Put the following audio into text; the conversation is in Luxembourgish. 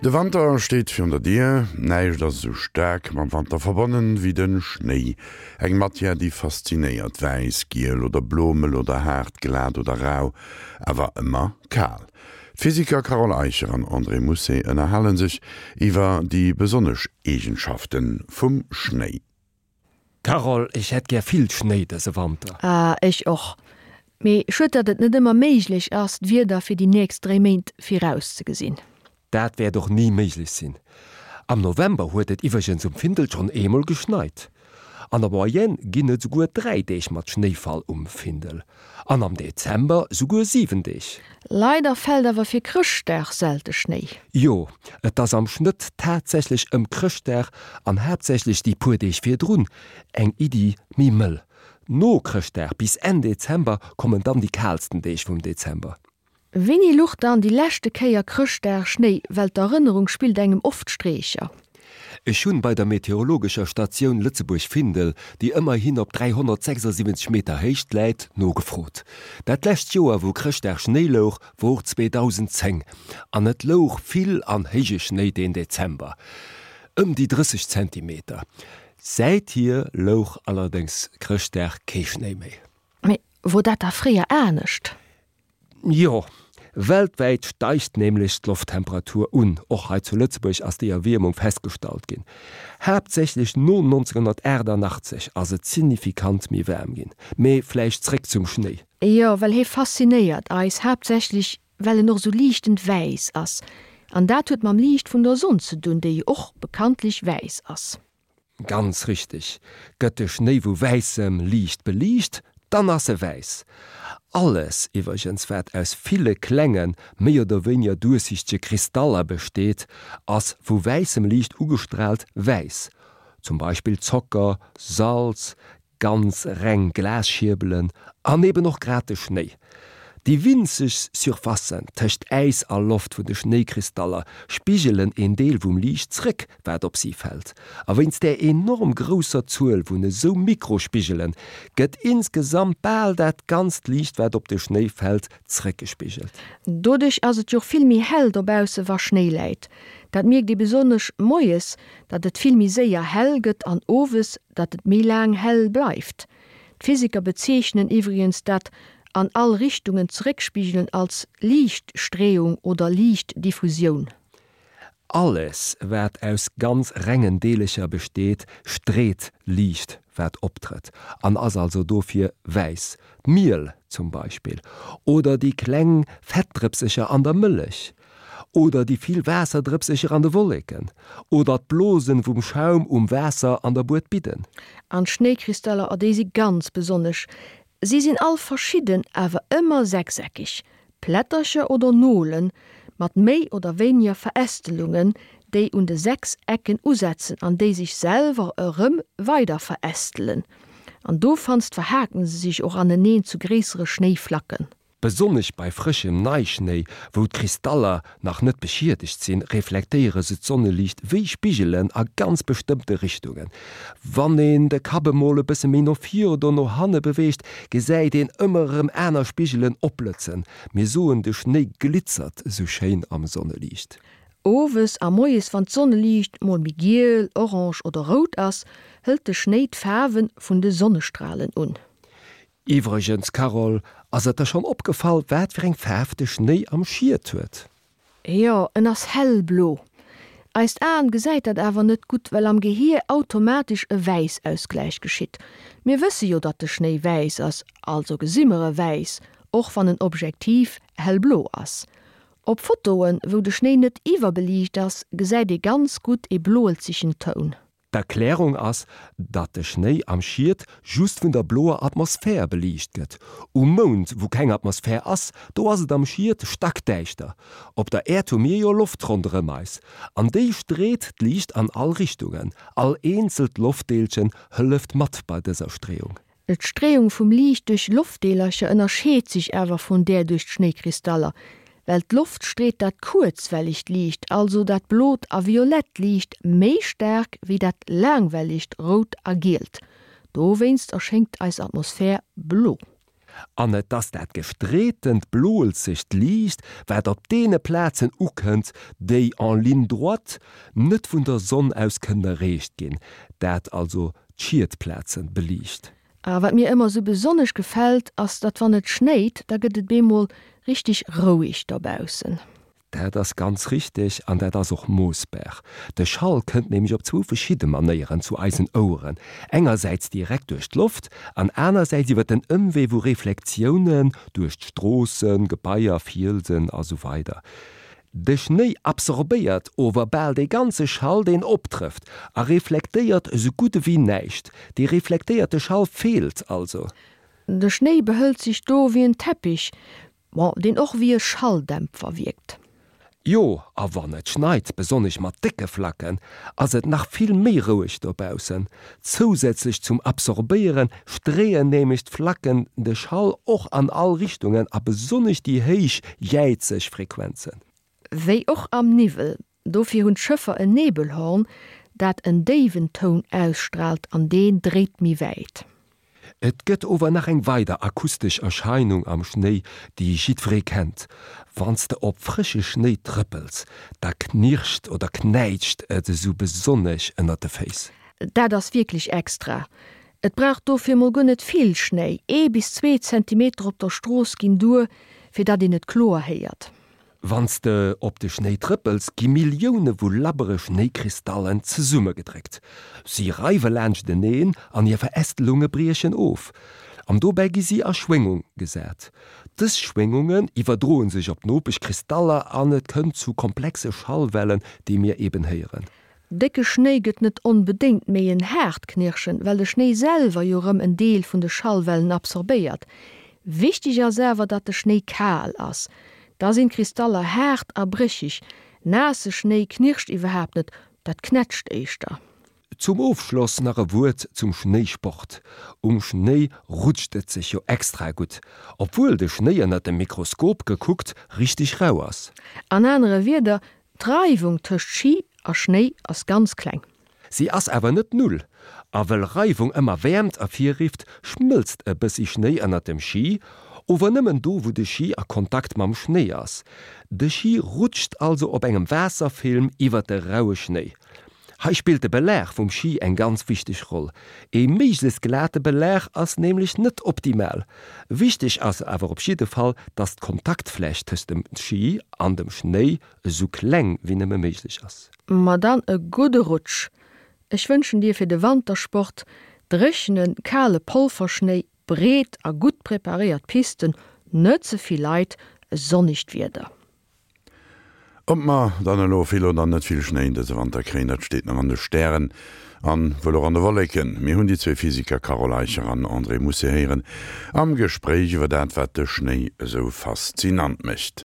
De Wanter steet virun der Dier. Näischt ass esou staark mam Wanter verbonnen wéi de Schnéi. Eng Matière, déi faszinéiert, wäiss, giel oder blo, mëll oder haart, glat oder rau, awer ëmmer kal. D'Physiker Carole Eicher an André Mousset ënnerhale sech iwwer déi besonnesch Eegenschafte vum Schnéi. Carole, ech hätt gär vill Schnéi dëse Wanter. Ah, ech och. Mee schued, datt et net ëmmer méiglech ass, d'Wieder fir déi nächst 3 Méint virauszegesinn. Dat wäert och ni méiglech sinn. Am November huet et iwwregens um Findel schonn eemol geschneit. An der Moyenne ginn et esouguer 3 Deeg mat Schnéifall um Findel. An am Dezember souguer 7 Deeg. Leider fält awer fir Chrëschtdag selte Schnéi. Jo, et ass am Schnëtt tatsächlech ëm Chrëschtdag an haaptsächlech déi puer Deeg virdrun eng Iddi méi mëll. No Chrëschtdag bis Enn Dezember kommen dann déi kaalsten Deeg vum Dezember. Wéini luch dann déi leschte Kéier Chrëschtdag Schnéi? Well d'Erënnerung spillt engem oft Streecher. Ech hunn bei der meteorologescher Statioun Lëtzebuerg-Findel, déi ëmmerhin op 376 Meter Héicht läit, nogefrot. Dat lescht Joer wou Chrëschtdag Schnéi louch wor 2010 an et louch vill an héije Schnéi deen Dezember, ëm déi 30 Zentimeter. Säithier louch allerdéngs Chrëschtdag kee Schnéi méi. Mee wor dat da fréier anescht? Jo, weltwäit steigt nämlech d'Lofttemperatur un. Och hei zu Lëtzebuerg ass déi Erwiermung festgestallt ginn. Haaptsächlech no 1988 ass et signifikant méi waarm ginn. Mee vläicht zréck zum Schnéi. Jo, well hie faszinéiert eis, haaptsächlech well en och sou liichtend wäiss ass. An dat huet mam Liicht vun der Sonn ze dunn, déi jo och bekanntlech wäiss ass. Ganz richteg, gëtt de Schnéi vu wäissem Liicht beliicht, dann ass e wäiss. Alles iwwergens wat aus ville klengen, méi oder wéiniger duerchsichtege Kristaller besteet, ass vu wäissem Liicht ugestraalt wäiss. Zum Beispill Zocker, Salz, Ganz reng Glasschierbelen an eben och grad de Schnéi. Déi winzeg Surfacen tëscht Äis a Loft vun de Schnéikristaller spigelen een Deel vum Liicht zréck, wat op si fält. A wéinst där enorm grousser Zuel vun esou Mikrospigelen gëtt insgesamt bal dat ganzt Liicht, wat op de Schnéi fält, zréckgespigelt. Doduerch ass et jo och vill méi hell dobausse wa Schnéi läit. Dat mierkt ee besonnesch moies, datt et vill méi séier hell gëtt an owes, datt et méi laang hell bleift. D'Physiker bezeechnen iwwregens dat an all Richtungen zeréckspigelen als Liichtstreeung oder Liichtdiffusioun. Alles wat aus ganz rengen Deelecher besteet, street Liicht wat optrëtt an ass also dofir wäiss. D'Miel zum Beispill oder déi kleng Fettdrëpsecher an der Mëllech. Oder déi vill Waasserdrëpsecher an de Wolleken. Oder d'Blosen vum Schaum um Waasser an der Buedbidden. An d'Schnéikristaller, oh déi si ganz besonnesch. Si sinn all verschidden, awer ëmmer sechseckeg. Plättercher oder Nolen, mat méi oder wéiniger Verästelungen, déi un de 6 Ecken usetzen an déi sech selwer erëm weider verästelen. An dofanst verhaken se sech och aneneen zu gréissere Schnéiflacken. Besonnesch bei frëschem Neischnéi, wou d'Kristaller nach net beschiedegt sinn, reflektéiere se d'Sonneliicht wéi Spigelen a ganz bestëmmte Richtungen. Wann een de Kapp emol e bësse méi no vir oder no hanne beweegt, gesäit een ëmmer erëm aner Spigelen opblëtzen. Mir soen, de Schnéi glitzert esou schéin am Sonneliicht. Owes a moies, wann d'Sonneliicht mol méi giel, orange oder rout ass, hëlt de Schnéi d'Faarwe vun de Sonnestralen un. Iwwregens Carole, ass et der schonn opgefall wat fir eng Faarf de Schnéi am Schiet huet? Jo, en ass hellblo. Eist Aen gesäit dat awer net gutt, well am Gehier automatesch e Wäissausgläich geschitt. Mir wësse jo datt de Schnéi wäiss ass, also gesi mer e wäiss, och wann en objektiv hellblo ass. Op Fotoen, wou de Schnéi net iwwerbeliicht ass, gesäit ee ganz gutt e bloelzegen Toun. D'Erklärung ass, datt de Schnéi am Schiet just vun der bloer Atmosphär beliicht gëtt. Um Mound, wou keng Atmosphär ass, do ass et am Schiet stackdäischter. Op der Äerd hu mir jo Loft ronderëm eis, an déi street d'Liicht an all Richtungen. All eenzelt Loftdeelchen hëlleft mat bei dëser Streeung. D'Streeung vum Liicht duerch Loftdeelercher ënnerscheet sech awer vun där duerch d'Schnéikristaller, well d'Loft street dat kuerzwellegt Liicht, also dat blot a violett Liicht, méi staark wéi dat laangwellegt rout a gielt. Dowéinst erschéngt eis Atmosphär blo. An et ass dat gestreetent bloelzegt Liicht, wat op deene Plazen ukënnt, déi en ligne droite net vun der Sonn aus kënnen erreecht ginn, dat also d'Schietplaze beliicht. A wat mir ëmmer sou besonnesch gefält, ass, datt wann et schnéit, da gëtt et bemol richteg roueg dobaussen. Dat ass ganz richteg an dat ass och moossbar. De Schall kënnt nämlech op zwou verschidde Manéieren zu eisen Oueren, engersäits direkt duerch d'Loft an anersäits iwwer den Ëmwee vu Reflektiounen duerch d'Stroossen, Gebaier, Fielsen a sou weider De Schnéi absorbéiert ower bal dee ganze Schall deen optrëfft a reflektéiert esou gutt ewéi näischt. Dee reflektéierte Schall feelt also. De Schnéi behëlt sech do wéi en Teppich, Bon, deen och wéi e Schalldämpfer wierkt. Jo, a wann et schneit, besonnesch mat décke Flacken, ass et nach vill méi roueg dobaussen. Zousätzlech zum Absorbéiere streeën nämlech d'Flacken de Schall och an all Richtungen a besonnesch déi héich jäizeg Frequenzen. Wéi och am Niwwel. Dofir hunn d'Schëffer en Nebelhorn, dat en déiwen Toun ausstraalt an deen dréit méi wäit. Et gëtt ower nach eng weider akustesch Erscheinung am Schnéi, déi jiddweree kennt, Wann s de op frësche Schnéi trëppels, da knirscht oder knäitscht et esou besonnesch ënnert de Féiss. Dat ass wierklech extra. Et brauch dofir mol guer net vill Schnéi, ee bis zwee Zentimeter op der Strooss ginn duer, fir datt een et kloer héiert. Wann s de op de Schnéi trëppels, gi Millioune vu labbere Schnéikristallen zesummegedréckt. Si reiwe laanschteneen an hir Verästelunge briechen of. An dobäi gi si a Schwéngung gesat. Dës Schwéngungen iwwerdroe sech op d'Nopeschkristaller an et kënnt zu komplexe Schallwellen, déi mir eben héieren. Décke Schnéi gëtt net onbedéngt méi en haart Knirschen, well de Schnéi selwer jo rëm en Deel vun de Schallwellen absorbéiert. Wichteg ass awer, datt de Schnéi kal ass. Da sinn d'Kristaller haart a brécheg. Naasse Schnéi knirscht iwwerhaapt net, dat knätscht éischter. Zum Ofschloss nach e Wuert zum Schnéisport. Um Schnéi rutscht et sech jo extra gutt, obwuel de Schnéi ënnert dem Mikroskop gekuckt richteg rau ass. An anere Wierder, D'Reiwung tëscht Schi a Schnéi ass ganz kleng. Si ass awer net null. A wëll Reiwung ëmmer Wäermt ervirrifft, schmëlzt e bëssi Schnéi ënnert dem Schi, ower nëmmen do wou de Schi a Kontakt mam Schnéi ass. De Schi rutscht also op engem Waasserfilm iwwer de raue Schnéi. Hei spillt de Belag vum Schi eng ganz wichteg Roll. Ee méiglechst glate Belag ass nämlech net optimal. Wichteg ass awer op jidde Fall, dass d'Kontaktfläch tëscht dem Schi an dem Schnéi esou kleng wéi nëmme méiglech ass. Ma dann e gudde Rutsch! Ech wënschen dir fir de Wantersport dréchenen, kale Polverschnéi, breet a gutt preparéiert Pisten, net ze vill Leit, e sonnegt Wieder. Ob mer dann elo vill oder net vill Schnéi dëse Wanter kréien, dat steet nach an de Stären an wuel och an de Wolleken. Mir hunn déi zwee Physiker Carole Eicher an André Mousset héieren am Gespréich iwwer dat, wat de Schnéi esou faszinant mécht.